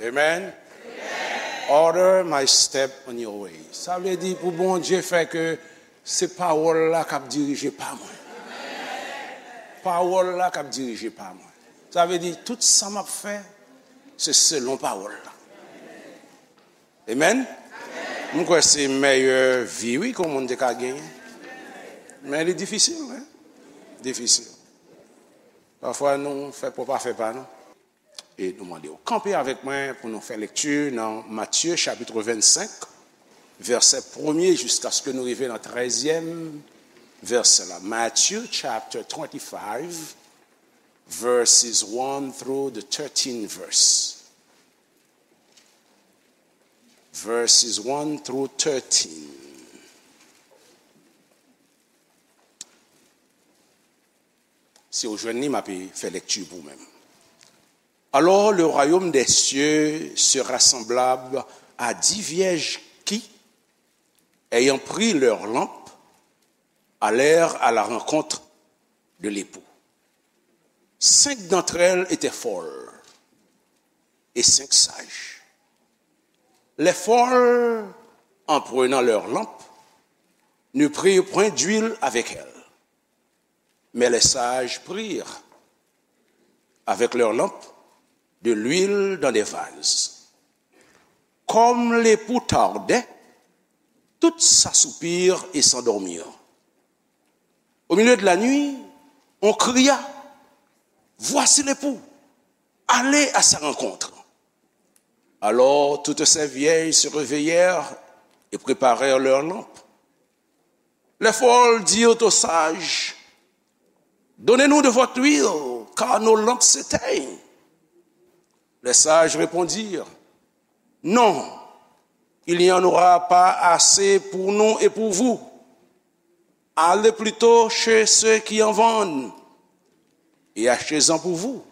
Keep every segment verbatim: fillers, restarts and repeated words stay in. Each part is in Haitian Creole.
Amen. Order my step on your way. Sa vle di pou Bondye fè ke se pawòl la k ap dirije pa mwen. Pawòl la k ap dirije pa mwen. Sa vle di tout sa m ap fè, se selon pawòl la. Amen. M kwè se mèyè vi, wi, ke yon moun te ka genyen. Men li difisil, wi. Difisil. Pafwa nou fè pwòp afè pa nou. E nou mande w kanpe avèk mwen pou nou fè lekti nan Matye chapit vennsenk, vèsè premye jiskaske nou rive nan trèzyèm vèsè la. Matthew chapter twenty-five, verses one through the thirteen verse. Verses one through thirteen. Si w jwenn li, m ape fè lekti pou ou menm. Alors le royaume des cieux sera semblable à dix vierges qui, ayant pris leurs lampes, allèrent à la rencontre de l'époux. Cinq d'entre elles étaient folles et cinq sages. Les folles, en prenant leurs lampes, ne prirent point d'huile avec elles. Mais les sages prirent, avec leurs lampes, de l'huile dans des vases. Comme l'époux tardait, toutes s'assoupirent et s'endormirent. Au milieu de la nuit, on cria : « Voici l'époux, allez à sa rencontre. » Alors toutes ces vierges se réveillèrent et préparèrent leurs lampes. Les folles dirent aux sages : « Donnez-nous de votre huile, car nos lampes s'éteignent. » Les sages répondirent : « Non, il n'y en aura pas assez pour nous et pour vous. Allez plutôt chez ceux qui en vendent et achetez-en pour vous. »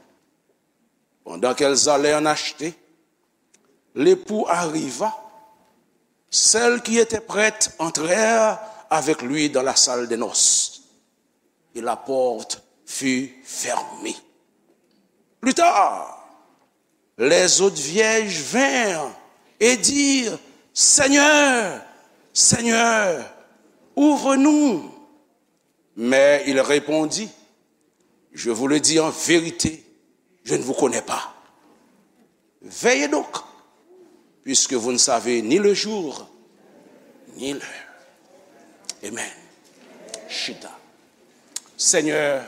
Pendant qu'elles allaient en acheter, l'époux arriva. Celles qui étaient prêtes entrèrent avec lui dans la salle des noces, et la porte fut fermée. Plus tard, les autres vierges vinrent et dirent : « Seigneur, Seigneur, ouvre-nous. » Mais il répondit : « Je vous le dis en vérité, je ne vous connais pas. Veillez donc, puisque vous ne savez ni le jour, ni l'heure. » Amen. Chita. Senyè,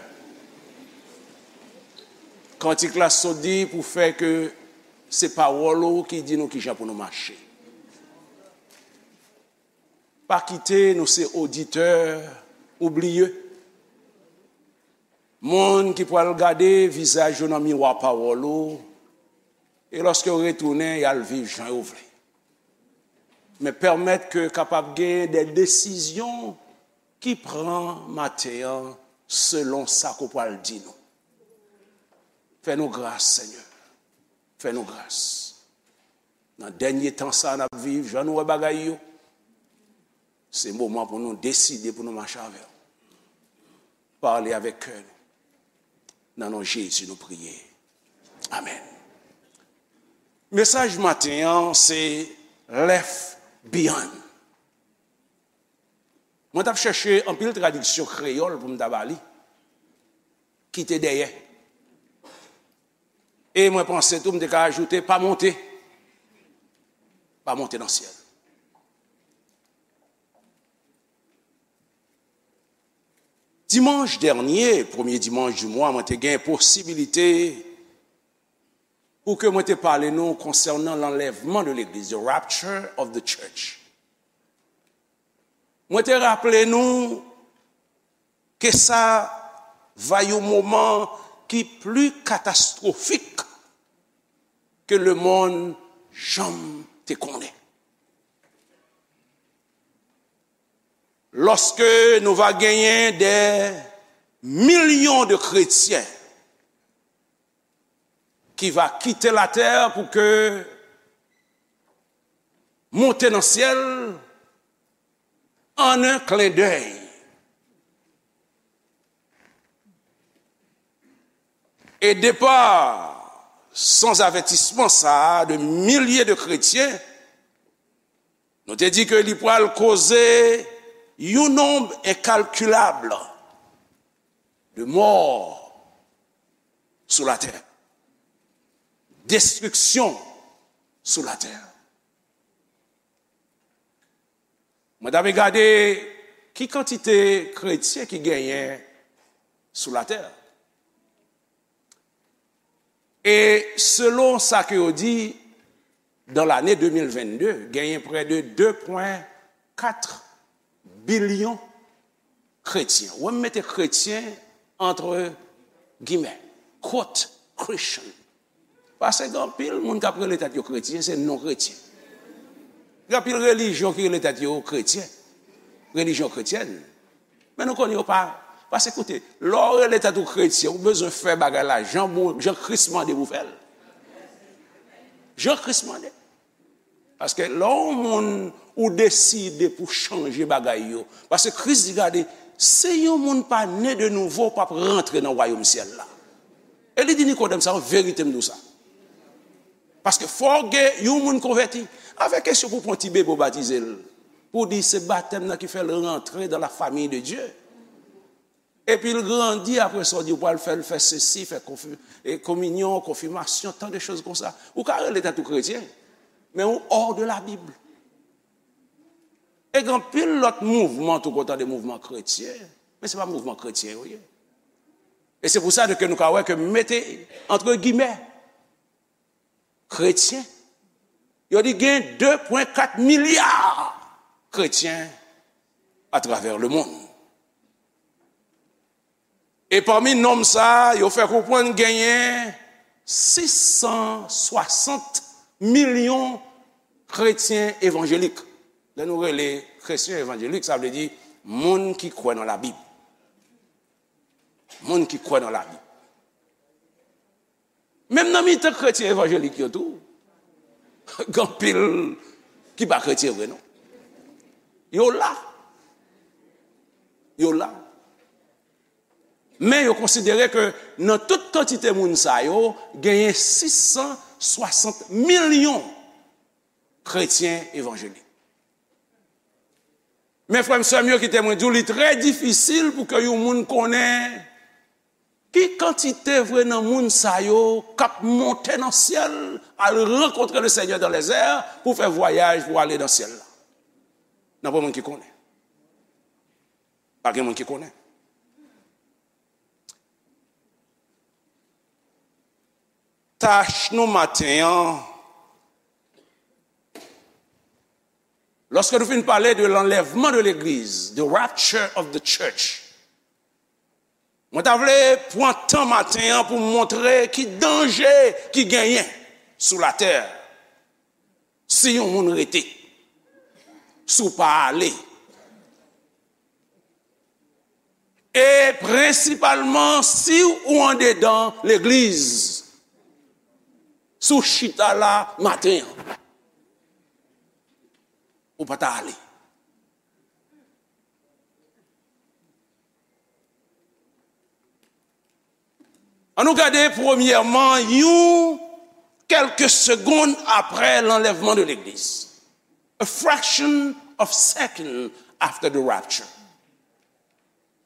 kantik la sot di pou fè ke se pawòl ou ki di nou kijan pou nou mache. Pa kite nou se oditè oubliye. Moun ki pral gade vizaj yo nan miwa pawòl ou, e lòske yo retounen, y al viv jan yo vle. Men pèmèt ke kapab gen de desizyon ki pran maten an selon sa ke w pral di nou. Fè nou gras, Senyè. Fè nou gras. Nan dènye tan sa a n ap viv, jan nou wè bagay yo, se moman pou nou deside pou nou mache avè w. Pale avèk kè nou. Nan non Jezi nou priye. Amèn. Mesaj maten an se Left Behind. Mwen t ap chèche anpil tradiksyon kreyòl pou m ta ba li. Kite dèyè. E mwen panse tou m te ka ajoute pa monte. Pa monte nan syèl. Dimanch dènye, premye dimanch di mwa, mwen te gen posibilite pou ke mwen te pale nou konsènan lanlèvman de legliz, the rapture of the church. Mwen te raple nou ke sa va yon moman ki pli katastwofik ke lemonn janm te konnen. Lòske nou va genyen dè milyon de kretyen ki va kite latè pou ke monte nan syèl an un clin d'œil. E depa Sans avertissement sa a de milye de kretyen, nou te di ke li pral koze yon nonb enkalkilab de mò sou latè, destriksyon sou latè. Mwen t ap gade ki kantite kretyen ki genyen sou latè. E selon sa ke yo di, dans l'année deux mille vingt-deux, genyen près de deux point quatre billion kretyen. Wè, m mete kretyen entre guillemets, quote Christian. Paske gen anpil moun k ap rele tèt yo kretyen, se non kretyen. Gen anpil relijyon ki rele tèt yo kretyen, relijyon kretyèn. Men nou konnen yo pa. Paske koute, lè w rele tèt ou kretyen, ou bezwen fè bagay la jan bon, jan Kris mande pou w fè l. Jan Kris mande. Paske lè yon moun ou deside pou chanje bagay yo, paske Kris di, gade, si yon moun pa ne de nouvo, w p ap rantre nan wayòm syèl la. E li di Nikodèm sa, an verite m di w sa. Paske fò gen yon moun konvèti. Avèk kesyon pou pran ti bebe w batize l, pou di se batèm nan ki fè l rantre dans la famille de Dieu. Epi l grandi, apre sa, w di w pral fè l fè sesi, fè konfi-, e, kominyon, konfimasyon, tan de choz konsa. Ou ka rele tèt ou kretyen, men ou hors de la Bible. E gen anpil lòt mouvman tou, kontan de mouvman kretyen, men se pa mouvman kretyen yo ye. E se pou sa ke nou ka wè ke mete entre guillemets, kretyen, yo di gen de pwen kat milya kretyen atravè lemonn. E pami nonm sa a, yo fè konprann genyen sis san swasant milyon kretyen evanjelik. Lè nou rele kretyen evanjelik, sa vle di moun ki kwè nan Labib. Moun ki kwè nan Labib. Menm nan mitan kretyen evanjelik yo tou, gen anpil ki pa kretyen vre, non. Yo la. Yo la. Men yo konsidere ke nan tout kantite moun sa yo, genyen sis san swasant milyon kretyen evanjelik. Men frè m, sè m yo, kite mwen di w, li trè difisil pou ke yon moun konnen ki kantite vre nan moun sa yo k ap monte nan syèl, al rankontre le Seigneur dans les airs, pou fè vwayaj pou ale nan syèl la. Nan pa moun ki konnen. Pa gen moun ki konnen. Tach nou maten an, lòske nou fin pale de l'enlèvement de l'église, the rapture of the church, mwen ta vle pran tan maten an pou m montre ki danje ki genyen sou latè si yon moun rete, si w pa ale. E prensipalman, si ou andedan legliz, si w chita la maten an, ou pa ta ale. Ann nou gade premyèman yon kèlke segonn apre l'enlèvement de l'église. A fraction of second after the rapture.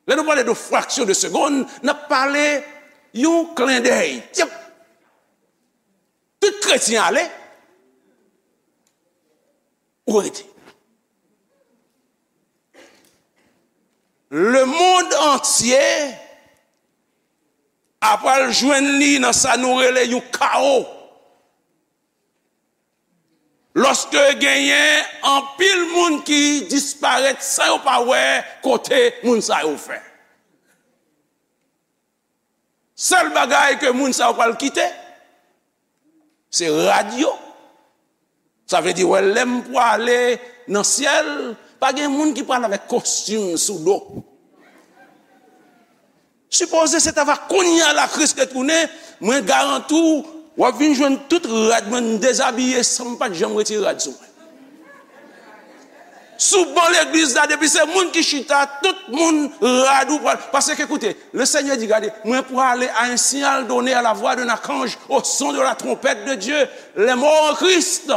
Lè nou pale de fraksyon de segonn, n ap pale yon klendèy. Tyap! Tout kretyen ale, ou rete. Lemonn antye apral jwenn li nan sa nou rele yon kawo. Lòske genyen anpil moun ki disparèt san yo pa wè kote moun sa yo fè. Sèl bagay ke moun sa yo pral kite, se rad yo. Sa vle di, wè, lè m prale nan syèl, pa gen moun ki pral avèk kostim sou do. Sipoze se ta va kounye a la Kris retounen, mwen garanti w, w ap vin jwenn tout rad mwen, m dezabiye san m pa t janm retire rad sou mwen. Sou ban legliz la, depi se moun ki chita, tout moun rad ou pral. Paske, koute, le Seigneur dit, gade, mwen prale à un signal donné, à la voix d'un archange, au son de la trompette de Dieu. Les morts en Christ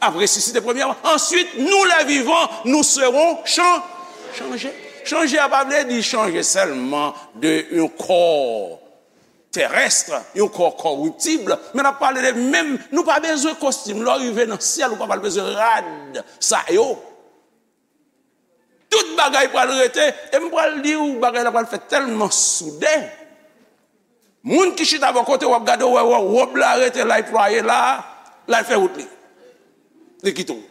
ap resisite premyèman. Answit, nou, les vivants, nous serons chan-, chanje. Chanje a pa vle di chanje sèlman de yon kò terès, yon kò kòriptib, men n ap pale de menm, nou pa bezwen kostim. Lè w rive nan syèl, ou pa pral bezwen rad sa yo. Tout bagay pral rete, e m pral di w, bagay la pral fèt tèlman soude. Moun ki chita bò kote w ap gade, w wè, wè wòb la rete la, l plwaye la, l al fè wout li. Li kite w.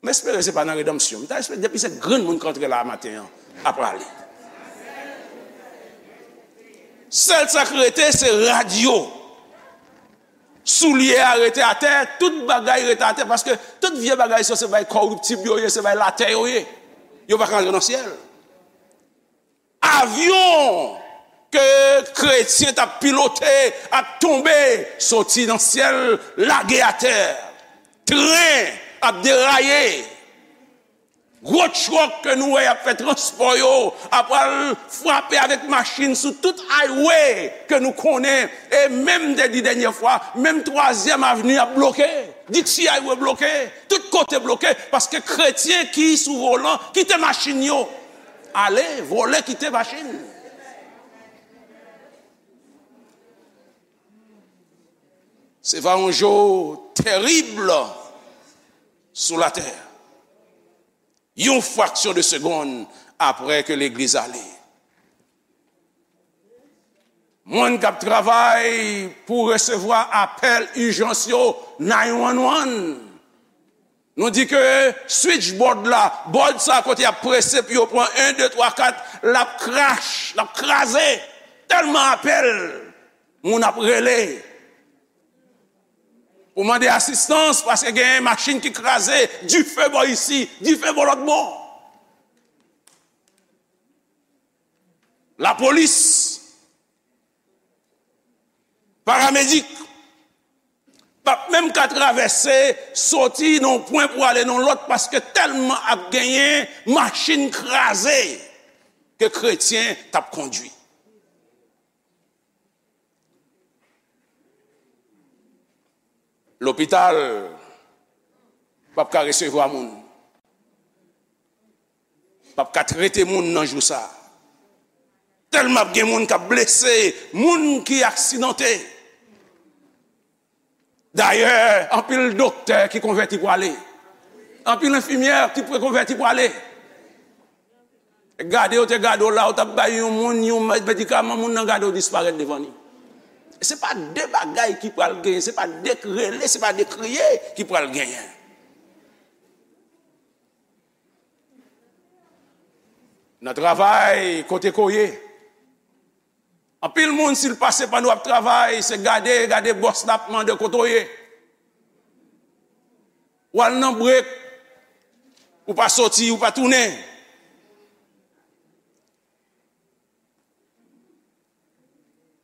M espere se pa nan redanmsyon. M ta espere depi se grenn moun k antre la maten an, ap prale. Sèl sa k rete, se rad yo. Soulye a rete atè, tout bagay rete atè, paske tout vye bagay sa, se bagay kòriptib yo ye, se bagay latè yo ye. Yo pa ka antre nan syèl. Avyon ke kretyen t ap pilote ap tonbe, soti nan syèl, lage atè. Tren ap deraye. Gwo twòk ke nou wè y ap fè transpò yo, ap al frape avèk machin sou tout highway ke nou konnen. E menm, m te di dènyè fwa, menm Twazyèm Avni ap bloke. Dixie Highway bloke. Tout kote bloke. Paske kretyen ki sou volan kite machin yo ale, vòlè kite machin. Se va yon jou terib sou latè. Yon fraksyon de segonn apre ke legliz ale. Moun k ap travay pou resevwa apèl ijans yo, nine one one. Nou di ke switchboard la, board sa kote y ap prese pou yo pran en, de, twa, kat, l ap krache, l ap kraze. Tèlman apèl, moun ap rele pou mande asistans, paske gen machin ki kraze, dife bò isi, dife bò lòt bò. Lapolis, paramedik, p ap menm ka travèse, soti nan yon pwen pou ale nan lòt, paske tèlman ap genyen machin kraze ke kretyen t ap kondui. Lopital p ap ka resevwa moun. P ap ka trete moun nan jou sa. Tèlman ap gen moun k ap blese, moun ki aksidante. Dayè, anpil doktè ki konvèti prale. Anpil enfimyè ki konvèti prale. Gade, yo te gade w la, ou t ap bay yon moun yon medikaman, moun nan gade w disparèt devan li. Se pa de bagay ki pral genyen, se pa de rele, se pa de kriye ki pral genyen. Nan travay, kote ke w ye, anpil moun, si l pase pandan w ap travay, se gade, gade bòs la ap mande kote w ye. W al nan brek, ou pa soti, ou pa tounen.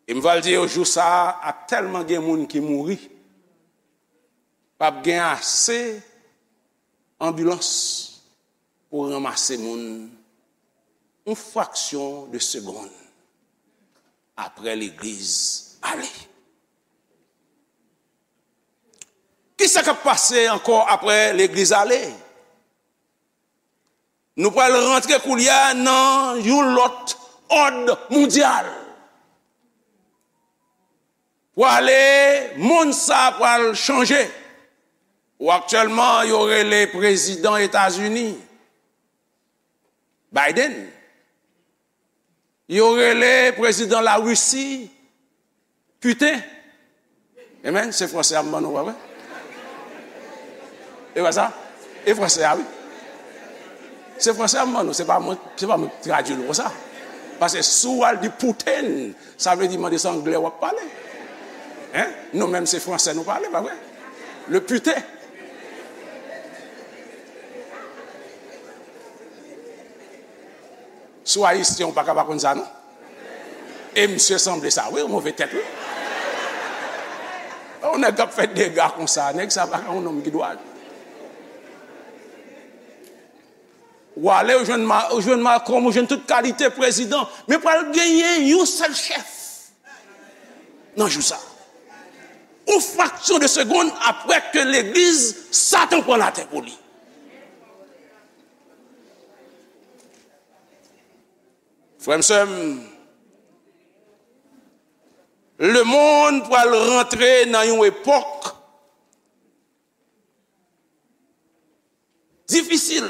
E m pral di yo, jou sa a, ap tèlman gen moun ki mouri, p ap gen ase anbilans pou ranmase moun yon fraksyon de segonn apre legliz ale. Kisa k ap pase ankò apre legliz ale? Nou pral rantre koulye a nan yon lòt òd mondyal. Pwale, monn sa a pral chanje. Ou aktyèlman, yo rele prezidan Etazini, Biden. Yo rele prezidan Larisi, Putin. Amen. Se franse a m ban nou, pa vre? E pa sa? E franse a, wi. Se franse a m ban nou, se pa mwen, se pa mwen ki tradui l konsa. Paske si w al di Putin, sa vle di mande se anglè w ap pale. Hein? Nou menm se franse nou pale, pa vre? Le putain. Si w ayisyen, ou pa ka pa konn sa, non? E misye sanble sa, wi, yon move tèt, wi. Yon nèg k ap fè dega konsa, nèg sa pa ka yon nonm ki dwat. Ou ale, ou jwenn Ma-, ou jwenn Malcolm, ou jwenn tout kalite prezidan. Men pral genyen yon sèl chèf nan jou sa. Yon fraksyon de segonn apre ke legliz, Satan pran latè pou li. Frè m, sè m, lemonn pral rantre nan yon epòk difisil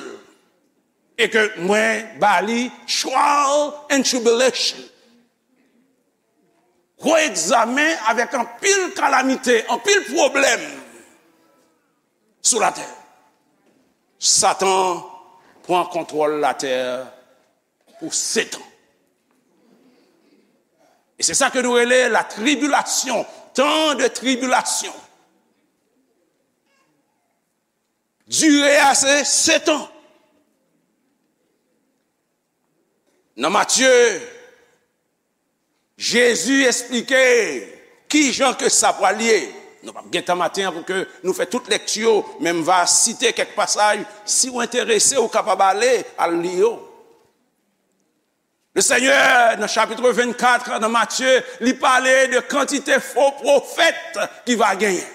e ke mwen ba li trial and tribulation. Gwo egzamen avèk anpil kalamite, anpil pwoblèm sou latè. Satan pran kontwòl latè pou sèt an. E se sa ke nou rele la tribulation, tan de tribulation. Dire a se sèt an. Nan Matye, Jezi esplike ki jan ke sa pral ye. Nou p ap gen tan maten an pou ke nou fè tout lekti yo, men m va site kèk pasaj. Si w enterese, ou kapab ale, al li yo. Le Senyè, nan chapit vennkat, nan Matye, li pale de kantite fo pwofèt ki va genyen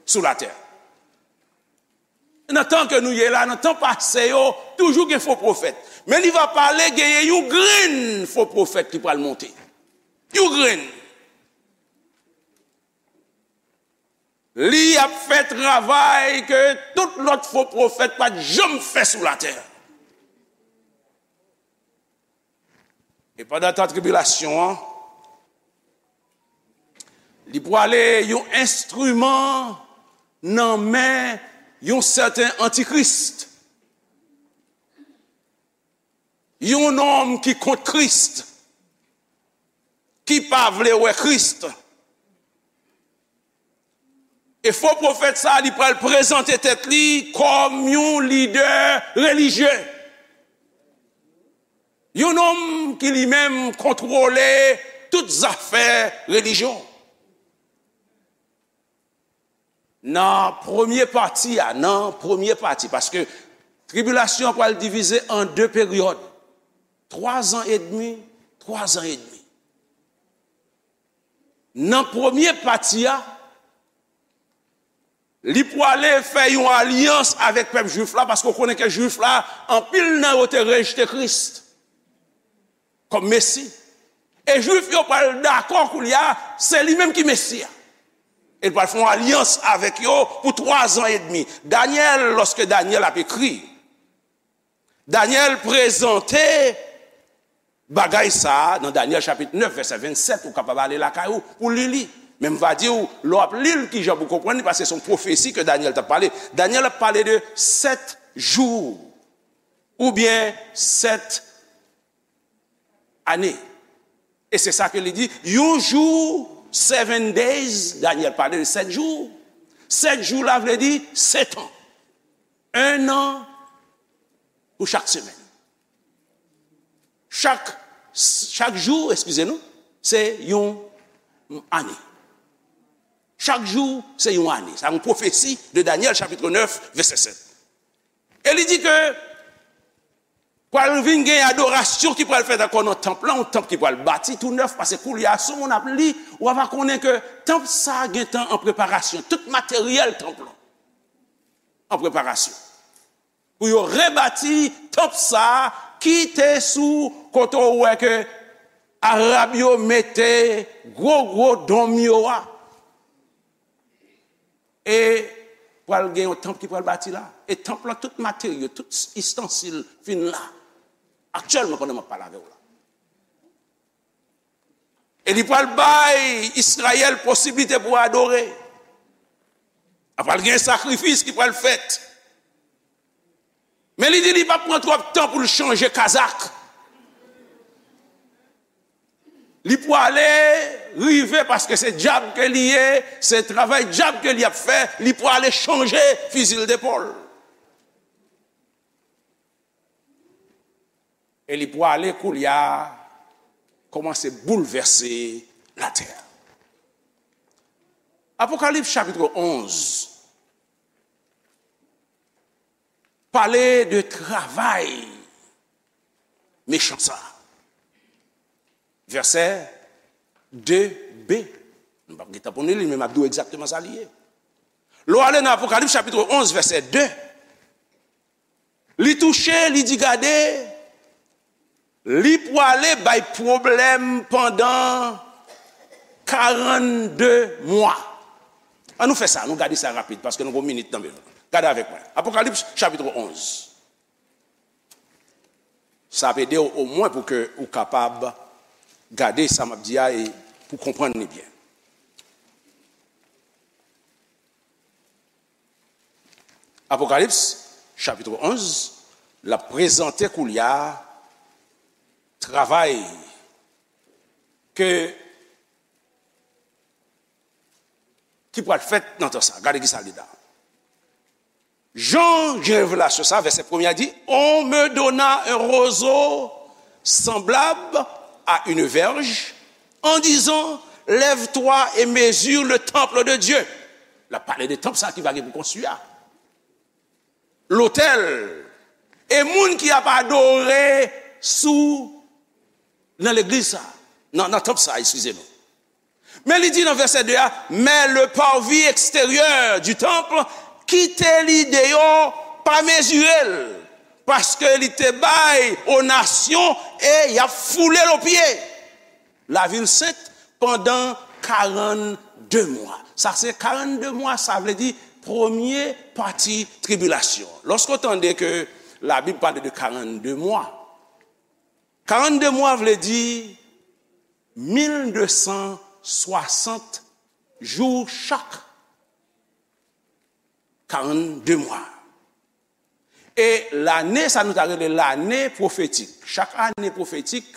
sou latè. Nan tan ke nou ye la, nan tan pase yo, toujou gen fo pwofèt. Men li va pale genyen yon grenn fo pwofèt ki pral monte. Yon grenn. Li ap fè travay ke tout lòt fo pwofèt pa t janm fè sou latè. E pandan tan tribilasyon an, li pwale yon enstriman nan men yon sèten antikris. Yon nonm ki kont Kris, ki pa vle wè Kris. E fo pwofèt sa a, li pral prezante tèt li kòm yon lidè relijye. Yon nonm ki li menm kontwole tout zafè relijyon. Nan premye pati a, nan premye pati, paske tribilasyon an pral divize an de peryòd, twa zan edmi, twa zan edmi. Nan premye pati a, li pwale fè yon alyans avèk pèp jwif la, paske w konnen ke jwif la, anpil nan yo te rejte Kris kòm Mesi. E Jwif yo pral dakò koulye a, se li menm ki Mesi a. E l pral fè yon alyans avèk yo pou twa zan edmi. Danyèl, lòske Danyèl ap ekri, Danyèl prezante bagay sa a nan Danyèl chapit nèf, vèsè vennsèt, ou kapab ale lakay ou pou li li. Men m va di w, lè w ap li l, kijan pou konprann li, paske se yon pwofesi ke Danyèl t ap pale. Danyèl ap pale de sèt jou, oubyen sèt ane. E se sa ke li di, yon jou, seven days, Danyèl pale de sèt jou. Sèt jou la vle di sèt an. En an pou chak semèn. Chak, chak jou, eskize nou, se yon ane. Chak jou, se yon ane. Sa yon pwofesi de Danyèl, chapit nèf, vèsè sèt. E li di ke pral vin gen adorasyon ki pral fèt ankò nan tanp lan, yon tanp ki pral bati tou nèf, paske koulye a, si yon moun ap li, w a va konnen ke tanp sa a gentan an preparasyon. Tout materyèl tanp lan an preparasyon. Pou yo rebati tanp sa a ki te sou kote w wè ke Arab yo mete gwo, gwo donm yo a. E pral gen yon tanp ki pral bati la. E tanp lan, tout materyo, tout istansil fin la. Aktyèlman, pandan m ap pale avè w la. E li pral bay Izrayèl posiblite pou adore. A pral gen sakrifis ki pral fèt. Men li di li p ap pran twòp tan pou l chanje kazak. Li pwale rive paske se djab ke li ye, se travay djab ke li ap fè, li pwale chanje fizi l depòl. E li pwale koulye a kòmanse boulvèse latè. Apokalips chapit onz. pale de travay mechan sa. Vèsè de b. Nou p ap gen tan pou nou li, men m ap di w egzakteman sa li ye. Lè w ale nan Apokalips chapit onz, vèsè de, li touche, li di, gade, li pwale bay pwoblèm pandan karannde mwa. An nou fè sa, nou gade sa rapid, paske nou gen yon minit nan men nou. Gade avèk mwen. Apokalips chapit onz. Sa ap ede w omwen pou ke ou kapab gade sa m ap di a e pou konprann li byen. Apokalips, chapit onz, l ap prezante koulye a travay ke, ki pral fèt nan tan sa. Gade ki sa li la. Jan gen revelasyon sa, vèsè premye a di, On me donna un roseau semblable à une verge, en disant, Lève-toi et mesure le temple de Dieu. L ap pale de tanp sa ki va gen pou konstwi a. Lotèl. E moun ki ap adore sou, nan legliz sa, nan, nan tanp sa, eskize nou. Men li di nan vèsè de a, Mais le parvis extérieur du temple, kite li deyò, pa mezire l, paske li te bay o nasyon e y ap foule l o pye. Lavil sent pandan karannde mwa. Sa se karannde mwa, sa vle di premye pati tribilasyon. Lòske w tande ke Labib pale de karannde mwa, karannde mwa vle di mil de san swasant jou chak karannde mwa. E lane, sa nou ta rele lane pwofetik. Chak ane pwofetik,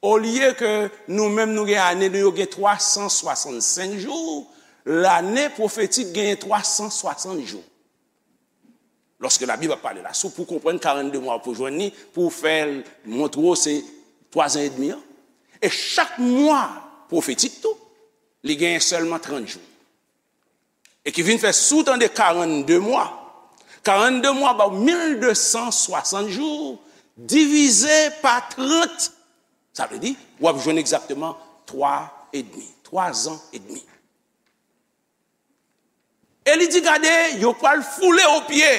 olye ke nou menm nou gen ane nou yo gen twa san swasannsenk jou, lane pwofetik genyen twa san swasant jou. Lòske Labib ap pale la, si w pou konprann karannde mwa pou jwenn li, pou w fè l montre w se twa zan edmi an. E chak mwa pwofetik tou, li genyen sèlman trant jou. E ki vin fè si w tande karannde mwa, karannde mwa ba w mil de san swasant jou divize pa trant, sa vle di w ap jwenn egzakteman twa edmi, twa zan edmi. E li di, gade, yo pral foule o pye,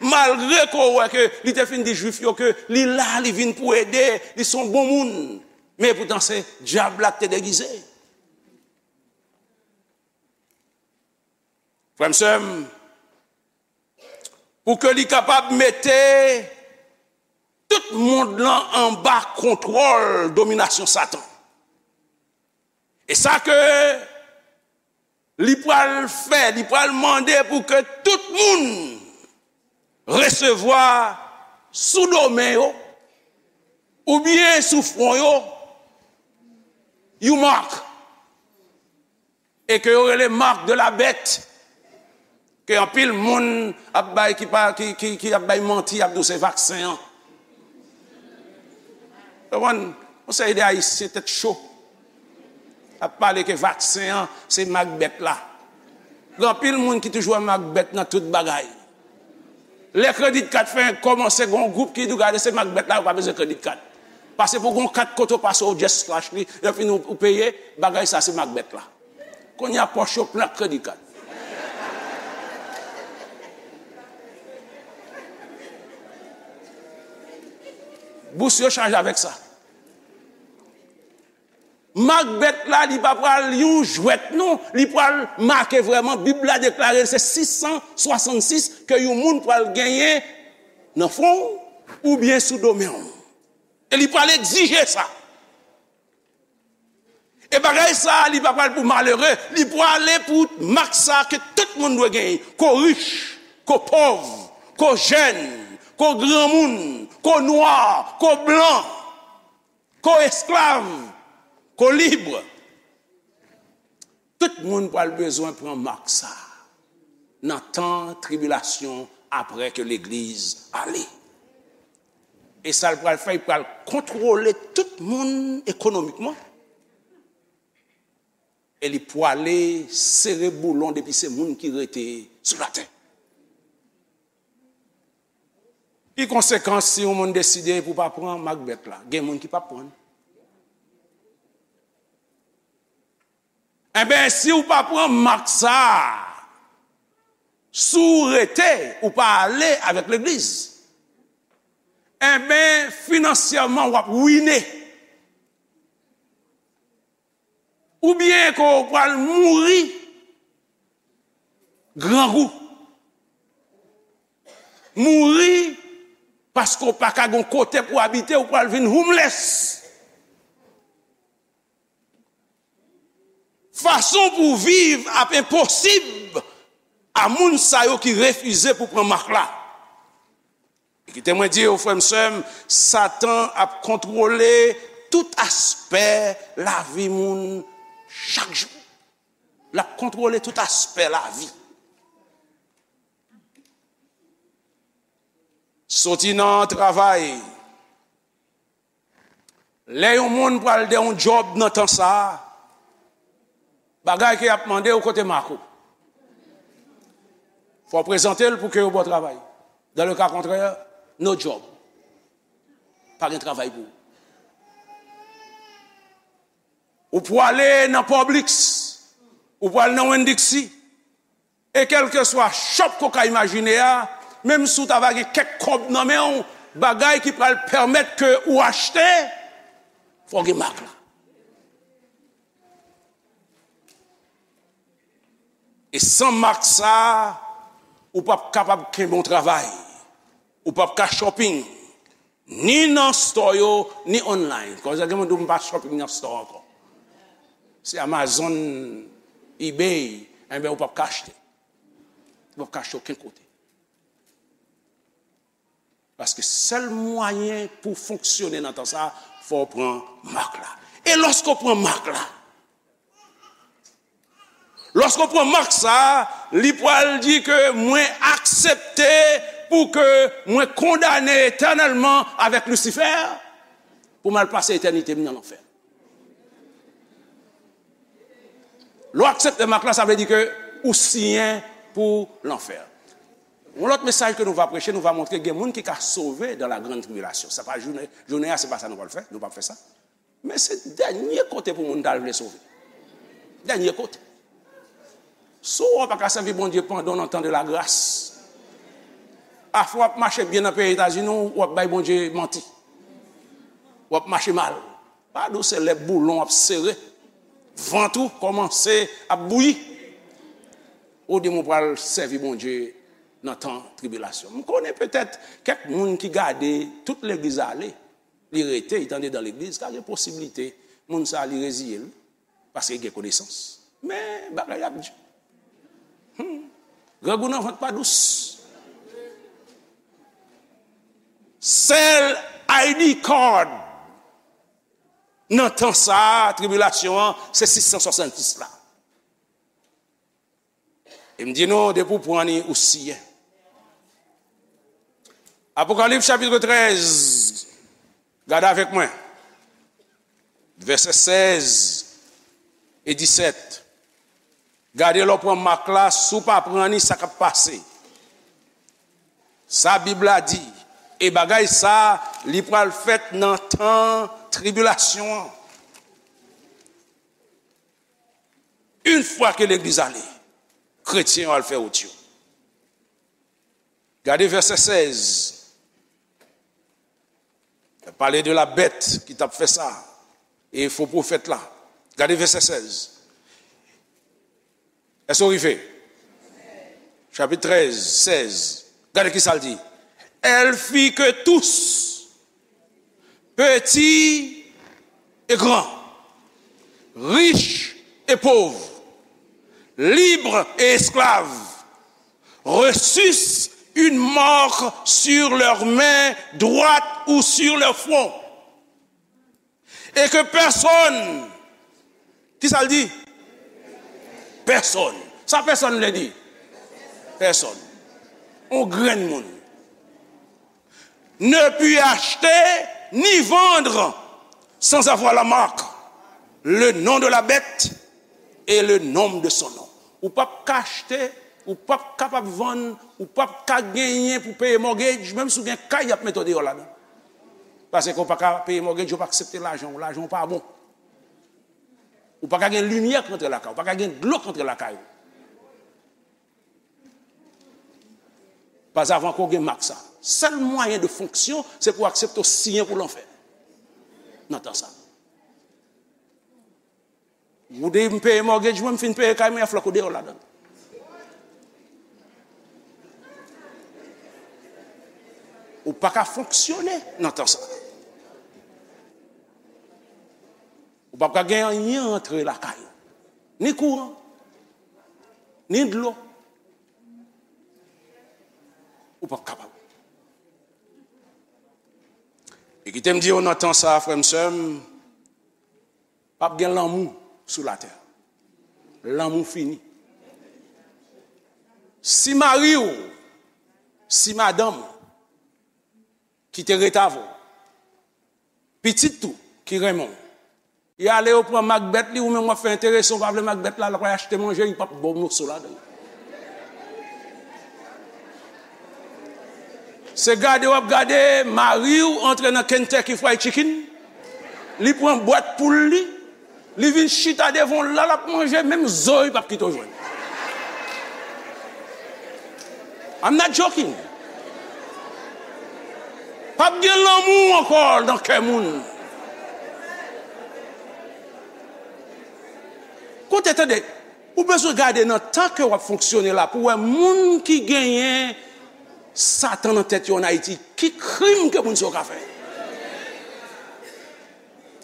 malgre ke w wè ke li te fin di Jwif yo ke li la, li vin pou ede, li se yon bon moun. Men epoutan se dyab la ki te degize. Frè m, sè m, pou ke li kapab mete tout mond lan anba kontwòl dominasyon Satan. E sa ke li pral fè, li pral mande pou ke tout moun resevwa sou do men yo, oubyen sou fwon yo, yon mak. E ke yo rele marque de la bête, ke anpil moun ap bay, ki pa, ki, ki, ki ap bay manti, ap di w se vaksen an. Konprann? Yon seri de Ayisyen tèt cho ap pale ke vaksen an se mak bèt la. Gen anpil moun ki toujou wè mak bèt nan tout bagay. Lè credit card fè kòmanse, gen yon gwoup ki di w gade se mak bèt la, ou pa bezwen credit card. Pase pou gen yon kat kote w pase, ou just flash li, lè fini ou, ou peye, bagay sa se mak bèt la. Kounye a pòch yo plen ak credit card. Bous yo chaje avèk sa. Mak bèt la, li pa pral yon jwèt, non. Li pral make vrèman, Bib la deklare l se sis san swasannsis ke yon moun pral genyen nan fwon w oubyen sou do men w. E li pral egzije sa. E bagay sa, li pa pral pou malere, li prale pou mak sa ke tout moun dwe genyen. Ke w rich, ke w pòv, ke w jèn, ke w granmoun, ke w nwa, ke w blan, ke w esklav, ke w lib. Tout moun pral bezwen pran mak sa nan tan tribilasyon apre ke legliz ale. E sa l pral fè, li pral kontwole tout moun ekonomikman. E li pwale sere boulon depi se moun ki rete sou latè. Ki konsekans si yon moun deside pou pa pran mak bèt la? Gen moun ki p ap pran. Enben, si w pa pran mak sa a, si w rete, ou pa ale avèk legliz, enben, finansyèman, w ap wine. Oubyen ke w pral mouri grangou. Mouri paske w pa ka gen kote pou w abite, w pral vin homeless. Fason pou w viv ap enposib a moun sa yo ki refize pou pran mak la. E kite mwen di w, frè m, sè m, Satan ap kontwole tout aspè lavi moun chak jou. L ap kontwole tout aspè lavi. Soti nan travay, lè yon moun pral de yon djòb nan tan sa a, bagay ke y ap mande w, kote mak ou? Fò w prezante l pou ke yo ba w travay. Dans le cas contraire, no job. Pa gen travay pou ou. Ou pwale nan Publix, ou pwale nan Winn-Dixie, e kèlkeswa shop ke w ka imajine a, menm si w ta va gen kèk kòb nan men w, bagay ki pral pèmèt ke ou achte, fò w gen mak la. E san mak sa a, ou p ap kapab kenbe yon travay. Ou p ap ka shopping, ni nan store yo, ni online. Kounye a gen moun di w, "M pa shopping nan store ankò." Se Amazon, eBay, enben, ou p ap ka achte. Ou p ap ka achte okenn kote. Paske sèl mwayen pou fonksyone nan tan sa a, fò w pran mak la. E lòske w pran mak la, lòske w pran mak sa a, li pral di ke mwen aksepte pou ke mwen kondane etènèlman avèk Lisifè, pou m al pase etènite m nan lanfè. Lè w aksepte mak la, sa vle di ke ou siyen pou lanfè. Yon lòt mesaj ke nou va preche, nou va montre gen moun ki ka sove dans la grande tribulation. Sa pa jounen, jounen an, se pa sa nou pral fè, nou p ap fè sa. Men se dènye kote pou moun ta vle sove. Dènye kote. Si w pa ka sèvi Bondye pandan w nan tan de la gras, afè w ap mache byen nan peyi Etazini, w ap bay Bondye manti. W ap mache mal. Pa dou, se lè boulon ap sere, vant ou kòmanse ap bouyi. Ou di m ou pral sèvi Bondye nan tan tribilasyon. M konnen petèt kèk moun ki gade tout legliz ale, li rete, li t andedan legliz, ka gen posiblite moun sa a li reziye l, paske li gen konesans. Men bagay ap di. Hmm. Grangou nan vant pa dous. Sèl I D card nan tan sa a, tribilasyon an, se sis san swasannsis la. E m di nou, depi w pran li, ou siyen. Apokalips chapit trèz, gade avèk mwen. Vèsè sèz e disèt. Gade lè w pran mak la, si w pa pran li, sa k ap pase. Sa Bib la di, e bagay sa, li pral fèt nan tan tribilasyon an. Yon fwa ke legliz ale, kretyen yo al fè wout yo. Gade vèsè sèz. Pale de la bèt ki t ap fè sa. E fo pwofèt la. Gade vèsè sèz. Èske w rive? Chapit trèz, sèz. Gade ki sa l di. Elle fit que tous, petits et grands, riches et pauvres, libres et esclaves, reçussent une marque sur leur main droite ou sur leur front. Et que personne, ki sa l di? Pèsonn. Sa pèsonn vle di? Pèsonn. On grenn moun. Ne put acheter ni vendre sans avoir la marque, le nom de la bête et le nombre de son nom. Ou p ap ka achte, Ou p ap kapab vann, ou p ap ka genyen pou peye mortgage, menm si w gen kay, y ap mete w deyò ladan. Paske w pa ka peye mortgage, yo pa aksepte lajan w, lajan w pa bon. Ou pa ka gen limyè k rantre lakay ou, ou pa ka gen dlo k rantre lakay ou. Pas avan ke w gen mak sa. Sèl mwayen de fonksyon, se pou w aksepte w siyen pou lanfè. Nan tan sa. Ou di m peye mortgage mwen, m fin peye kay mwen, y ap flanke w deyò ladan. Ou pa ka fonksyone nan tan sa. Ou p ap ka gen anyen antre lakay ou. Ni kouran, ni dlo. Ou p ap kapab. E kite m di w nan tan sa, frè m, sè m, p ap gen lanmou sou latè. Lanmou fini. Si mari w, si madanm ou ki te ret avè w, pitit ou ki renmen w, y ale yo pran mak bèt li, ou menm w ap fè enterese, w pa vle mak bèt la, l ap achte manje, li p ap ba w moso ladan. Se gade w ap gade, mari w antre nan Kentucky Fried Chicken, li pran bwat poul li, li vin chita devan w la, l ap manje, menm zo li p ap kite w jwenn. I'm not joking. P ap gen lanmou ankò nan kè moun. Koute, tande, ou bezwen gade nan tan ke w ap fonksyone la pou w wè moun ki genyen Satan nan tèt yo ann Ayiti, ki krim ke moun sa yo ka fè?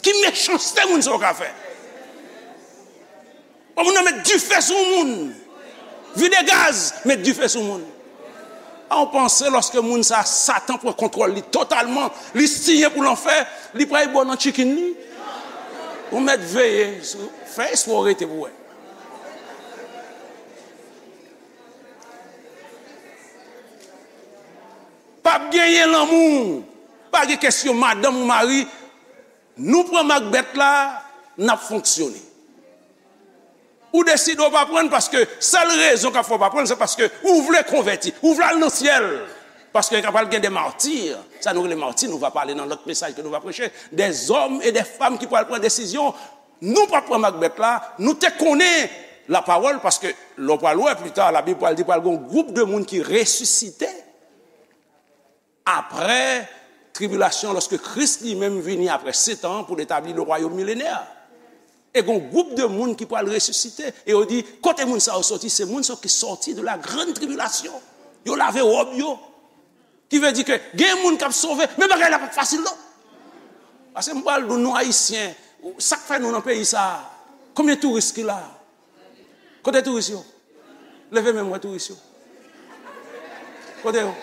Ki mechanste moun sa yo ka fè? Bon, moun nan met dife sou moun. Vide gaz, met dife sou moun. A, ou panse lòske moun sa, Satan pran kontwòl li totalman, li siyen pou lanfè, li pral ba w nan chicken li? Ou mèt veye, fè espwa w rete pou wè. P ap genyen lanmou, pa gen kesyon madanm ou mari, nou pran mak bèt la, n ap fonksyone. Ou deside w pa pran l paske sèl rezon k ap fè w pa pran l, se paske ou vle konvèti, ou vle al nan syèl. Paske ka pral gen de mati, sa nou rele mati, nou va pale nan lòt mesaj ke nou va preche, des hommes et des femmes ki pral pran desizyon. Nou p ap pran mak bèt la, nou te konnen lapawòl, paske lè w pral wè pli ta, Labib pral di pral gen yon gwoup de moun ki resisite apre tribilasyon, lòske Kris li menm vini apre sèt an pou l etabli le wayòm milenè. E gen yon gwoup de moun ki pral resisite, e yo di, kote moun sa yo soti? Se moun sa yo ki soti de la grande tribulation. Yo lave wòb yo. Ki vle di ke gen moun k ap sove, men bagay la p ap fasil non. Paske m pral di w, nou Ayisyen, sa k fè nou nan peyi sa a? Konbyen touris ki la? Kote touris yo? Leve men m wè touris yo. Kote yo?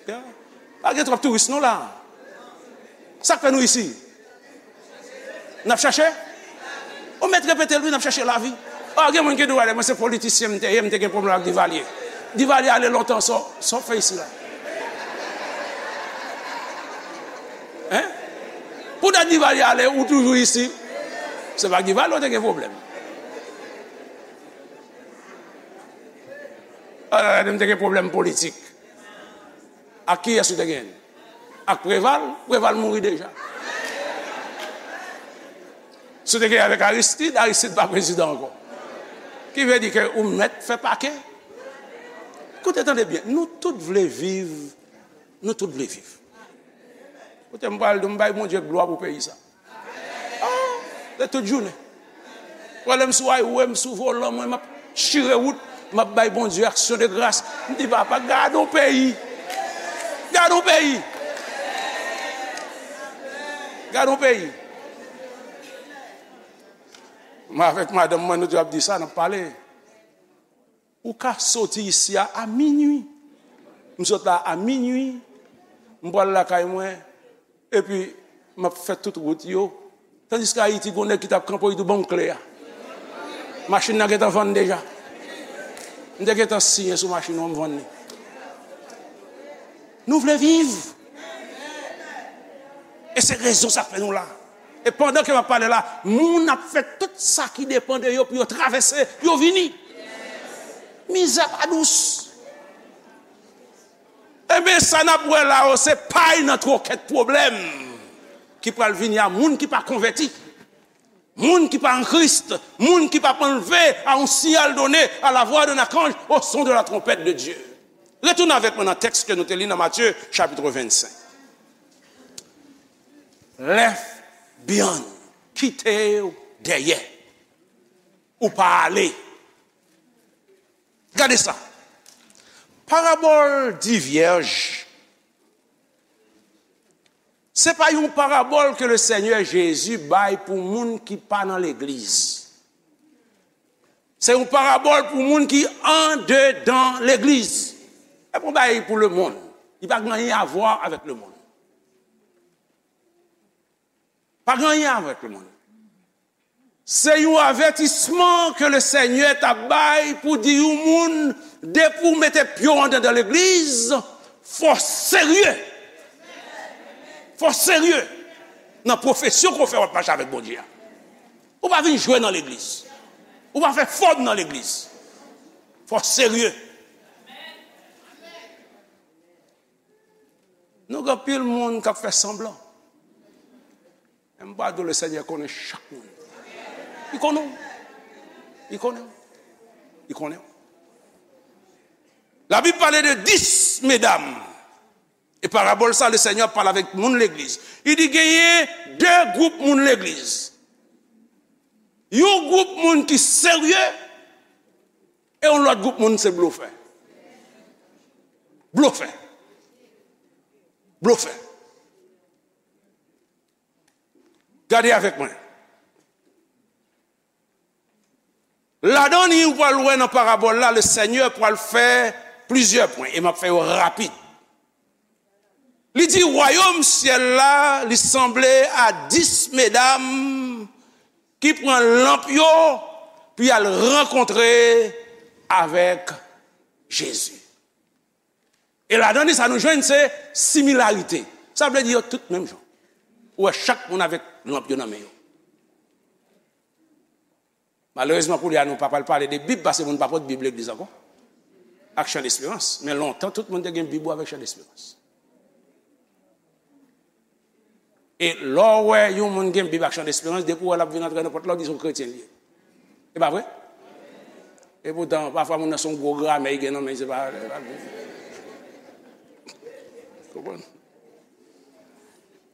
Ya. Pa gen twòp touris non la. Sa k fè nou isi? N ap chache? Ou mèt repete l wi, n ap chache lavi. O, gen moun ki di w, "Wè, mwen se politisyen m te ye, m te gen pwoblèm ak Divalye." Divalye ale lontan, sa w, sa w fè isi la? Hein? Pou dat Divalye ale, ou toujou isi? Se pa Divalye ou te gen pwoblèm. A, m te gen pwoblèm politik. Ak kiyès ou te genyen? Ak Preval? Preval mouri deja. Si w te genyen avèk Aristide, Aristide pa prezidan ankò. Ki vle di ke ou mèt fè pake. Koute, tande byen, nou tout vle viv, nou tout vle viv. Koute, m pral di w, m bay Bondye glwa pou peyi sa. Ah, se tout jounen. Pwè lè m sou highway, m sou volan mwen, m ap chire wout, m ap bay Bondye aksyon de gras. M di, "Papa, gade yon peyi. Gade yon peyi. Gade yon peyi." Mwen avèk madanm mwen, nou te ap di sa, n ap pale. Ou ka soti isi a, a minui. M sot la a minui. M pral lakay mwen. Epi, m ap fè tout wout yo. Tandiske Ayiti, gen yon nèg ki t ap kanpe, li di, "Ban m kle a." Machin nan gentan vann deja. M te gentan siyen sou machin nan, m vann li. Nou vle viv. E se rezon sa k fè nou la. E pandan ke m ap pale la, moun ap fè tout sa ki depann de yo pou yo travèse, yo vini. Mizè pa dous. Ebyen, sa n ap wè la yo, se pay nan twokèt pwoblèm ki pral vini a moun ki pa konvèti, moun ki pa an Kris, moun ki p ap anlve a yon siyal done a la vwa de lakanje, o son de la tronpèt de Dye. Retounen avèk mwen nan tèks ke nou te li nan Matye, chapit vennsenk. Lève beyond, kite w dèyè. Ou pa ale. Gade sa. Parabòl di vyèj, se pa yon parabòl ke le Senyè Jezi bay pou moun ki pa nan legliz. Se yon parabòl pou moun ki andedan legliz. E pou bay pou lemonn. Li pa gen anyen a vwa avèk lemonn. Pa gen anyen avèk lemonn. Se yon avètisman ke le Senyè t ap bay pou di yon moun, depi w mete pye w andedan legliz, fò w serye. Fò w serye nan pwofesyon ke w fè w ap mache avèk Bondye a. Ou pa vin jwe nan legliz. Ou pa fè fòm nan legliz. Fò w serye. Nou gen anpil moun k ap fè sanblan. Men m pa di w, le Senyè konnen chak moun. Li konnen w. Li konnen w. Li konnen w. Labib pale de dis medam. E parabòl sa, le Senyè ap pale avèk moun legliz. Li di genyen de gwoup moun legliz. Yon gwoup moun ki serye, e yon lòt gwoup moun se blofè. Blofè. Blofè. Gade avèk mwen. Ladan li, ou pral wè nan parabòl la, le Senyè pral fè plizyè pwen, e m ap fè yo rapid. Li di, wayòm syèl la, li sanble a dis medam ki pran lanp yo, pou y al rankontre avèk Jezi. E ladan li, sa nou jwenn, se similarite. Sa vle di yo tout menm jan. Ou wè chak moun avèk lanp yo nan men yo. Malerezman, kounye a, nou pa pral pale de Bib, paske moun pa pot Bib legliz ankò. Ak Chan Desperans. Men lontan, tout moun te gen Bib ou avèk Chan Desperans. E lè w wè yon moun gen Bib ak Chan Desperans, depi w wè l ap vin antre nan pòt la, w di se yon kretyen li ye. E pa vre? E poutan, pafwa moun nan se yon gwo gramè li gen nan men, se pa, se pa Bib. Konprann?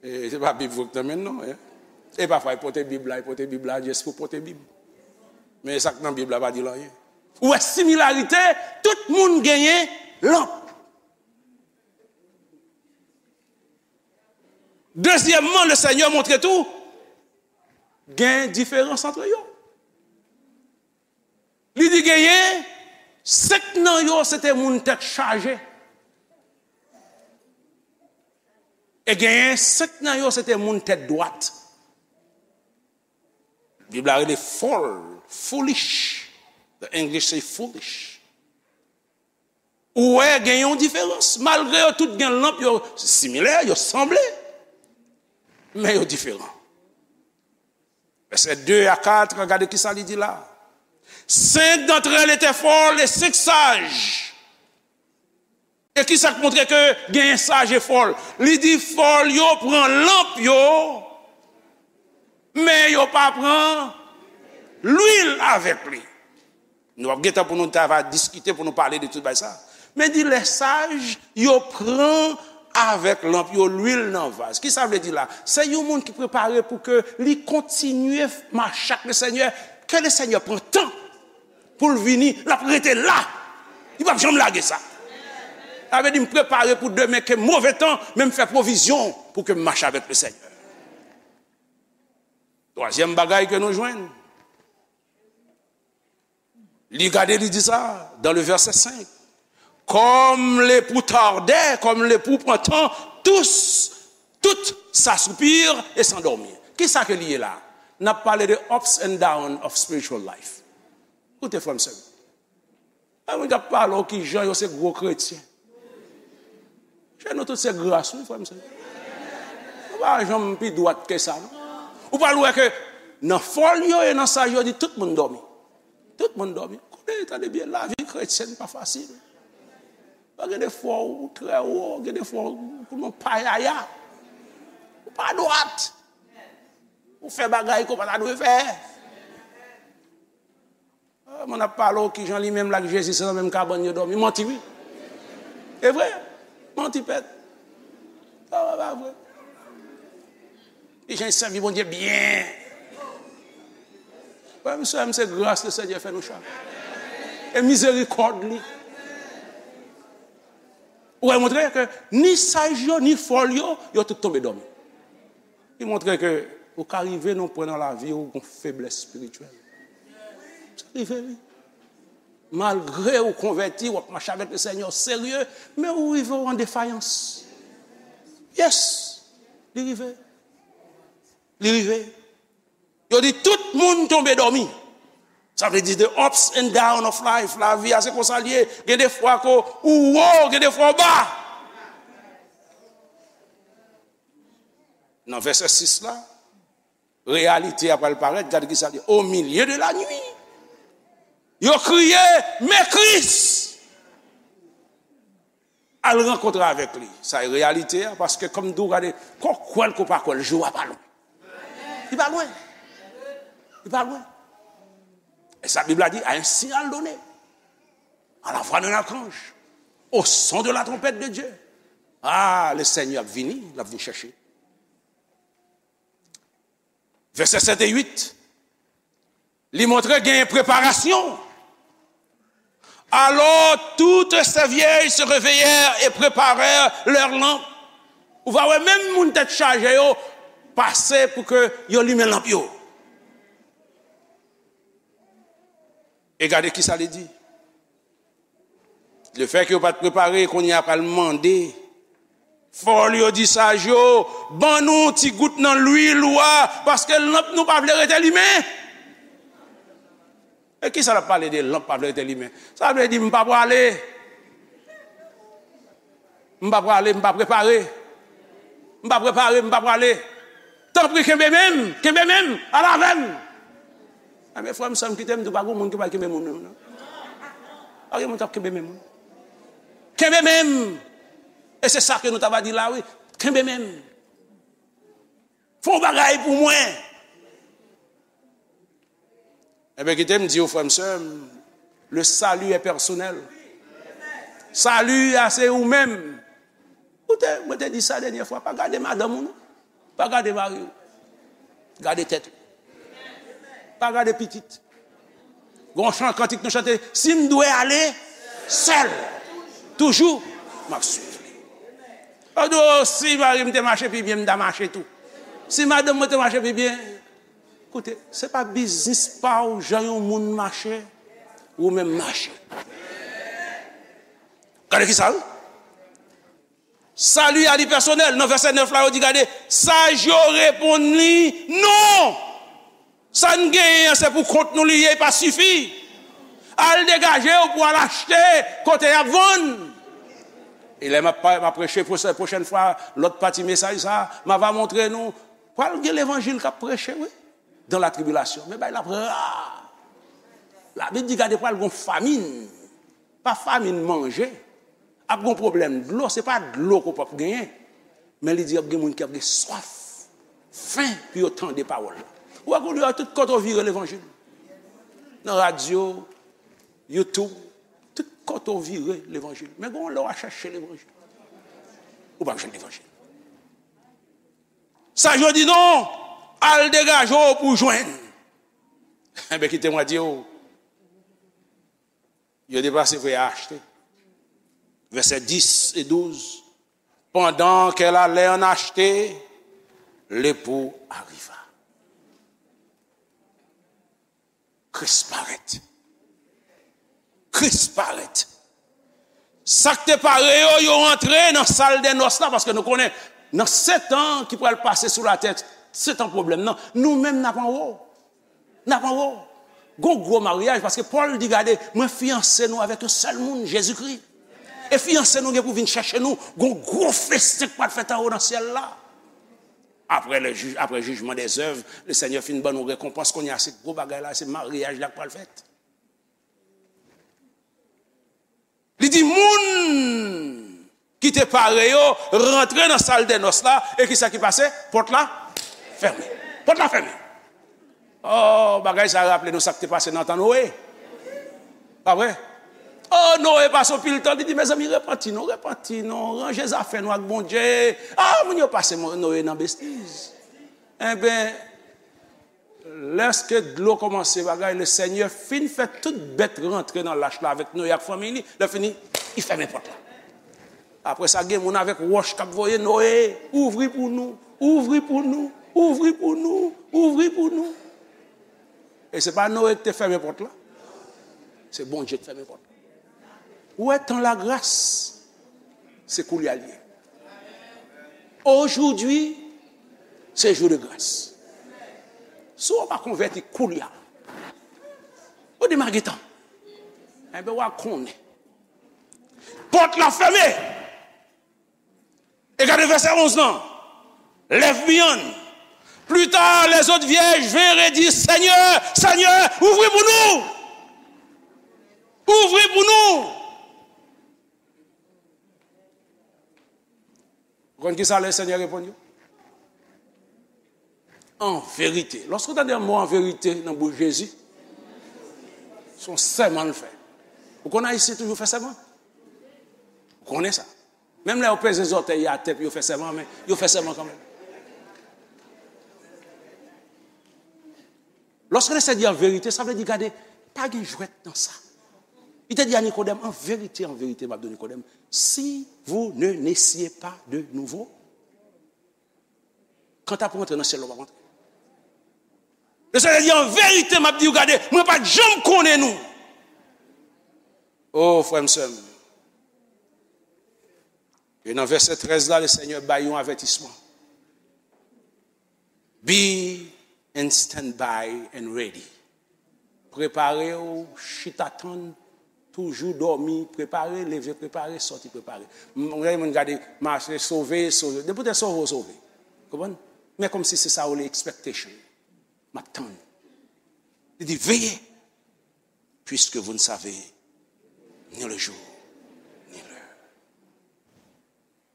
E se pa Bib vre k nan men l non, en. E pafwa, e pote Bib la, e pote Bib la, just pou pote Bib. Men sa k nan Bib la pa di l anyen. Ou wè similarite, tout moun genyen lanp. Dezyèmman, le Senyè montre tou, gen diferans ant yo. Li di genyen senk nan yo, se te moun tèt chaje. E genyen senk nan yo, se te moun tèt dwat. Bib la rele fòl, foolish. The English say foolish. Ou wè, gen yon diferans. Malgre yo tout gen lanp, yo similè, yo sanble, men yo diferan. Vèsè de a kat, gade ki sa li di la. Cinq d'entre elles étaient folles et cinq sages. E ki sa k montre ke genyen saj e fòl? Li di fòl yo pran lanp yo, men yo pa pran lwil avèk li. Nou ap gen tan pou nou ta va diskite, pou nou pale de tout bagay sa. Men di lè saj yo pran avèk lanp yo lwil nan vaz. Ki sa vle di la? Se yon moun ki prepare pou ke li kontinye mache ak le Senyè, ke le Senyè pran tan pou l vini, l ap rete la. Li p ap janm lage sa. Sa vle di m prepare pou demen ke move tan, men m fè pwovizyon pou ke m mache avèk le Senyè. Twazyèm bagay ke nou jwenn, li gade, li di sa, dans le verset cinq. Comme l'époux tardait, comme l'époux pran tan, tous, tout s'assoupirent et s'endormirent. Ki sa ke li ye la? N ap pale de ups and down of spiritual life. Koute, frè m, sè m. Gen moun k ap pale w ki jan yo se gwo kretyen. Chè, nou tout se gras, wi, frè m, sè m. Nou pa janm pi dwat ke sa, non. Ou pral wè ke nan fòl yo e nan saj yo di tout moun dòmi. Tout moun dòmi. Konnen, tande byen, lavi kretyèn pa fasil. Gen de fwa ou trè wo, gen de fwa ou nan payaya. Ou pa dwat. Ou fè bagay ke w pa ta dwe fè. Ah, moun ap pale w kijan li menm l ak Jezi se nan menm kabann yo dòmi. Manti wi. E vre. Manti pèt. Sa pa vre. Kijan l sèvi Bondye byen. Frè m, sè m, se gras Lesenyè fè nou chak. E mizerikòd li. Ou wè, montre ke ni saj yo, ni fòl yo, yo tout tonbe dòmi. Li montre ke ou ka rive nan yon pwen nan lavi w, ou gon feblès espirityèl. Sa rive, wi. Malgre ou konvèti, w ap mache avèk Lesenyè, w serye, men ou rive w an defayans. Yes, li rive. Li rive. Yo di tout moun tonbe dòmi. Sa vle di the ups and down of life. Lavi a se konsa l ye. Gen de fwa ke ou wo, gen de fwa ou ba. Nan vèsè sis la, reyalite a pral parèt. Gade ki sa l di. Au milieu de la nuit, yo kriye, men Kris al rankontre avèk li. Sa e reyalite a, paske kòm m di w, gade, ke w kwè l, ke w pa kwè l, jou a pa lwen. Li pa lwen. Li pa lwen. E sa Bib la di, à un signal donné, à la voix d'un archange, au son de la trompette de Dieu. Ah, le Seigneur ap vini, l ap vin chèche. Vèsè sèt e uit, li montre gen preparasyon. Alors toutes ces vieilles se réveillèrent et préparèrent leurs lampes. Ou va wè menm moun tèt chaje yo pase pou ke yo limen lanp yo. E gade ki sa li di. Lefètke yo pa t prepare, kounye a pral mande. Fòl yo di saj yo, ban nou ti gout nan lwil ou a, paske lanp nou pa vle rete limen. E kisa l ap pale de lanp pa vle rete limen? Sa vle di m pa prale. M pa prale, m pa prepare. M pa prepare, m pa prale. Tanpri, kenbe men m, kenbe men m, al avè m. Enben, frè m, sè m, kite m di w, pa gen moun ki pral kenbe men w, non. Pa gen moun k ap kenbe men moun. Kenbe men m. E se sa ke nou ta va di la, wi. Kenbe men m. Fè yon bagay pou mwen. Enben, kite m di w, frè m, sè m, le salut est personnel. Sali a se ou menm. Ou te, mwen te di sa dènyè fwa, pa gade madanm ou non. Pa gade mari w. Gade tèt ou. Pa gade pitit. Gon chan kantik nou chante, si m dwe ale sèl, toujou m ap swiv li. Ou di, o, si mari m te mache pi byen, m ta mache tou. Si madanm mwen te mache pi byen, koute, se pa biznis pa w jan yon moun mache, ou menm mache. Gade ki sa, wi. Sali a li pèsonèl. Nan vèsè nèf la, yo di, gade, saj yo reponn li, non! Sa n genyen an, se pou kont nou li ye, pa sifi. Al degaje w pou al achte kote y ap vann. E lè m ap pa-, m ap preche pwochè-, pwochèn fwa, lòt pati mesaj sa, m ava montre nou, pral gen levanjil k ap preche, wi, dans la tribulation. Men bagay la ap ra. Labib di, gade, pral gon famin. Pa famin manje. Ap gon pwoblèm dlo, se pa dlo ke w p ap genyen. Men li di ap gen moun ki ap gen swaf, fen pou yo tande pawòl la. Ou wè kounye a tout kote w vire levanjil. Nan radyo, YouTube, tout kote w vire levanjil. Men gon lè w a chèche levanjil. Ou p ap jwenn levanjil. Sa yo di non, al degaje w pou w jwenn. Enben, kite mwen di w, yo deplase vre a achte. Vèsè dis e douz. Pendant qu'elle allait en acheter, l'époux arriva. Kris parèt. Kris parèt. Sa k te pare yo, yo antre nan sal dè nòs la, paske nou konnen, nan sèt an ki pral pase sou latè, sèt an pwoblèm nan, nou menm n ap anwo. N ap anwo. Gon gwo maryaj, paske Pòl di, gade, mwen fiyanse nou avèk yon sèl moun, Jezikri. E fiyanse nou gen pou vin chèche nou, gon gwo festen k pral fèt anwo nan syèl la. Apre le jij, apre jijman dèzèv, le Senyè fin ban nou rekonpans, kounye a se gwo bagay la, se maryaj la k pral fèt. Li di moun ki te pare yo rantre nan sal dè nòs la, e kisa ki pase? Pòt la fèmen. Pòt la fèmen. Oh, bagay sa raple nou sa k te pase nan tan Noe. Pa vre? Oh, Noe pase yon pil tan, li di, mezanmi, repanti nou, repanti nou, ranje zafè nou ak Bondye. Ah, moun yo pase Mo- Noe nan bestiz. Enben, lèske dlo kòmanse bagay, le Senyè fin fè tout bèt rantre nan lach la avèk Noe ak fanmi li, lè fini, li fèmen pòt la. Apre sa, gen moun avèk wòch k ap voye, Noe, ouvri pou nou, ouvri pou nou, ouvri pou nou, ouvri pou nou. E se pa Noe ki te fèmen pòt la. Se Bondye ki fèmen pòt la. Ou wè, tan lagras, se koulye a l ye. Aujourd'hui, c'est jour de grâce. Si w pa konvèti koulye a, ou demare tan. Enben, w a konnen. Pòt la fèmen. E gade vèsè onz lan. Left behind. Plus tard, les autres vierges vinrent et dirent, Seigneur, Seigneur, ouvri pou nou. Ouvri pou nou. Ou konn ki sa le Senyè reponn yo? An verite. Lòske w tande mo an verite nan bouch Jezi, se yon sèman l fè. Ou konn Ayisyen toujou fè sèman? Ou konnen sa. Menm lè yo peze zòtèy yo atè pou yo fè sèman, men yo fè sèman kanmenm. Lòske le Senyè di an verite, sa vle di, gade, pa gen jwèt nan sa. Li te di a Nikodèm, an verite, an verite, m ap di w, Nikodèm, si vous ne naissez pas de nouveau, kanta pou rantre nan syèl la, w ap rantre. Le Senyè di, an verite, m ap di w, gade, mwen pa t janm konnen nou. O, frè m, sè m. E nan vèsè trèz la, le Senyè bay yon avètisman. Be in standby and ready. Prepare w, chita tann, toujou dòmi, prepare, leve, prepare, sòti, prepare. M, m, moun gade, mache, sove, sove. Depi w te sove, w sove. Konprann? Men kòmsi se sa w rele expectation. M ap tann. Li di, veillez, puisque vous ne savez ni le jour, ni l'heure.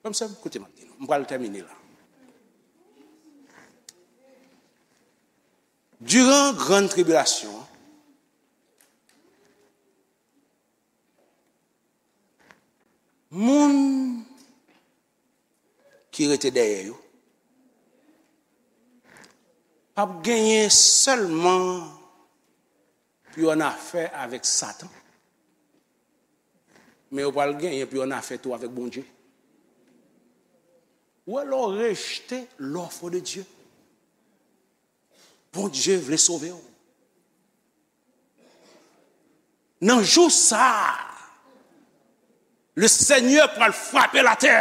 Frè m, sè m, koute m ap di nou. M pral tèmine la. Diran grann tribilasyon an, moun ki rete dèyè yo p ap genyen sèlman pou yo annafè avèk Satan, men yo pral genyen pou yo annafè tou avèk Bondye. Ou wè, lè w rejte l'offre de Dieu, Bondye vle sove w. Nan jou sa a, le Senyè pral frape latè.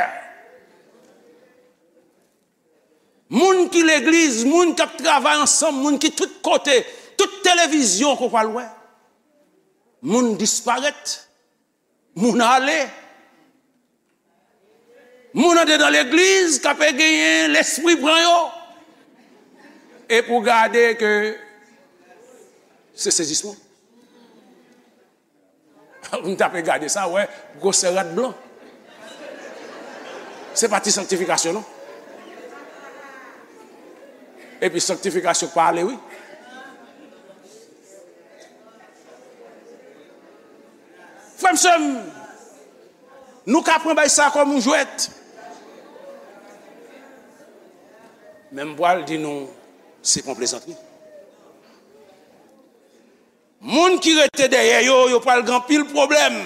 Moun ki legliz, moun k ap travay ansanm, moun ki tout kote, tout televizyon ke w pral wè. Moun disparèt, moun ale. Moun andedan legliz k ap genyen lespri pran yo. E pou gade ke se sezisman. Moun tape gade sa, wè, gwosè rad blan. Se pa ti sanktifikasyon, non. Epi sanktifikasyon k pa ale, wi. Frè m, sè m, nou ka pran bagay sa kòm yon jwèt. Men m pral di nou, se pa yon plezantri. Moun ki rete dèyè yo, yo pral gen anpil pwoblèm.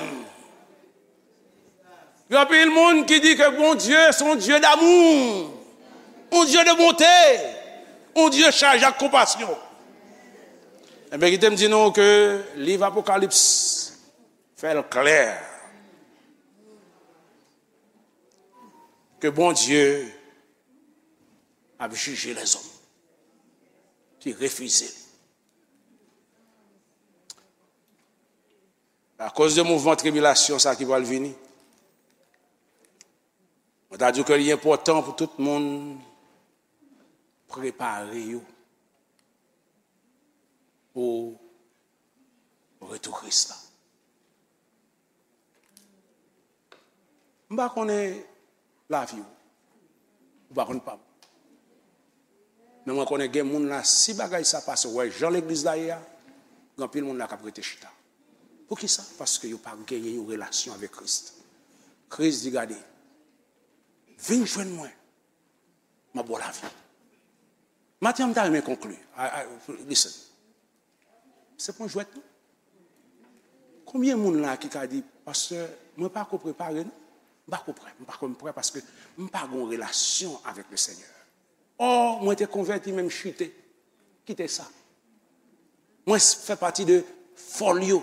Gen anpil moun ki di ke Bondye se yon Dye damou, yon Dye de bonte, yon Dye chaje ak konpasyon. Enben, kite m di nou ke liv Apokalips fè l klè ke Bondye ap jije lèzòm ki refize li. Akoz de mouvman tribilasyon sa ki pral vini, mwen ta di w ke li enpòtan pou tout moun prepare yo pou retou Kris la. M pa konnen lavi w. Ou pa konn pa m. Men mwen konnen gen moun la, si bagay sa pase, w wè jan legliz la ye a, gen anpil moun la k ap rete chita. Poukisa? Paske yo pa genyen yon relasyon avèk Kris. Kris di, gade, vin jwenn mwen, m ap ba w lavi. Maten an, m ta renmen konkli. I, I, listen. Se pa yon jwèt, non. Konbyen moun la ki ka di, pastè, mwen pa ko prepare, non? M pa ko prè, m pa ko prè paske m pa gen yon relasyon avèk le Senyè. Ò, mwen te konvèti, men m chite. Kite sa. Mwen s- fè pati de fòl yo.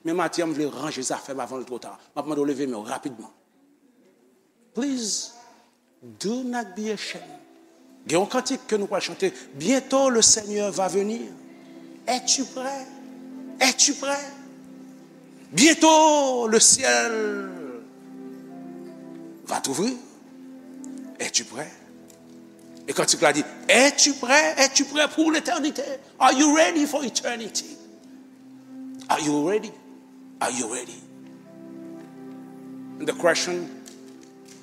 Men maten an, m vle ranje zafè m avan l twò ta. M ap mande w leve men w rapidman. Please, do not be ashamed. Gen yon kantik ke nou pral chante. Bientôt le Seigneur va venir. Es-tu prêt? Es-tu prêt? Bientôt le ciel va t'ouvrir. Es-tu prêt? E kantik la di, es-tu prêt? Es-tu prêt pour l'éternité? Are you ready for eternity? Are you ready? Are you ready? And the question,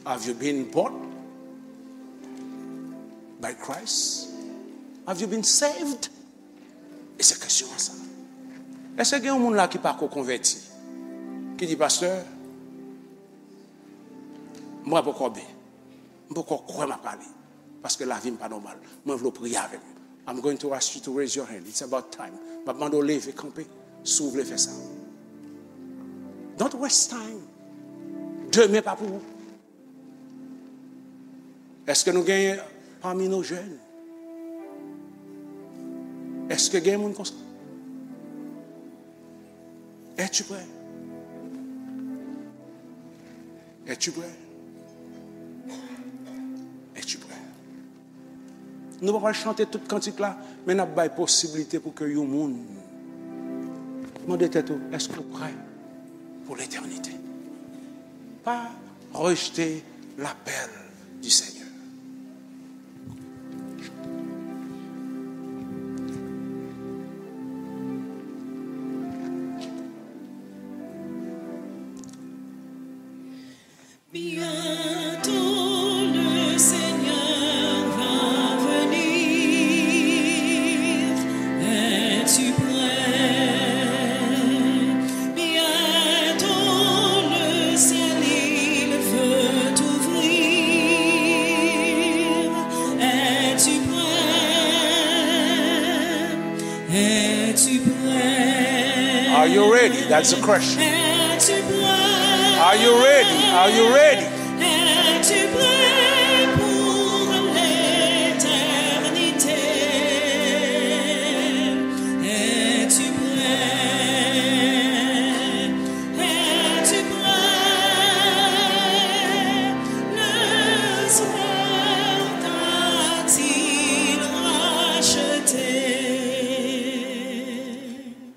have you been bought by Christ? Have you been saved? E se kesyon an sa. Èske gen yon moun la ki pa ko konvèti? Ki di, pastè, mwen poko byen. M poko kwè m ap ale. Paske lavi m pa nòmal. Mwen vle w priye avè m. I'm going to ask you to raise your hand. It's about time. M ap mande w leve kanpe si w vle fè sa. Don't waste time. Demen pa pou ou. Èske nou genyen pami nou jèn? Èske gen moun konsa? Es-tu prêt? Es-tu prêt? Es-tu prêt? Nou pa pral chante tout kantik la, men n ap bay posiblite pou ke yon moun mande tèt ou, èske w prè pou letènite? Pa rejte lapèl du Seigneur. Bientôt le Seigneur va venir. Es-tu prêt? Bientôt le ciel il veut t'ouvrir. Es-tu prêt? Es-tu prêt? Are you ready? That's the question. Es-tu prêt? Are you ready? Are you ready?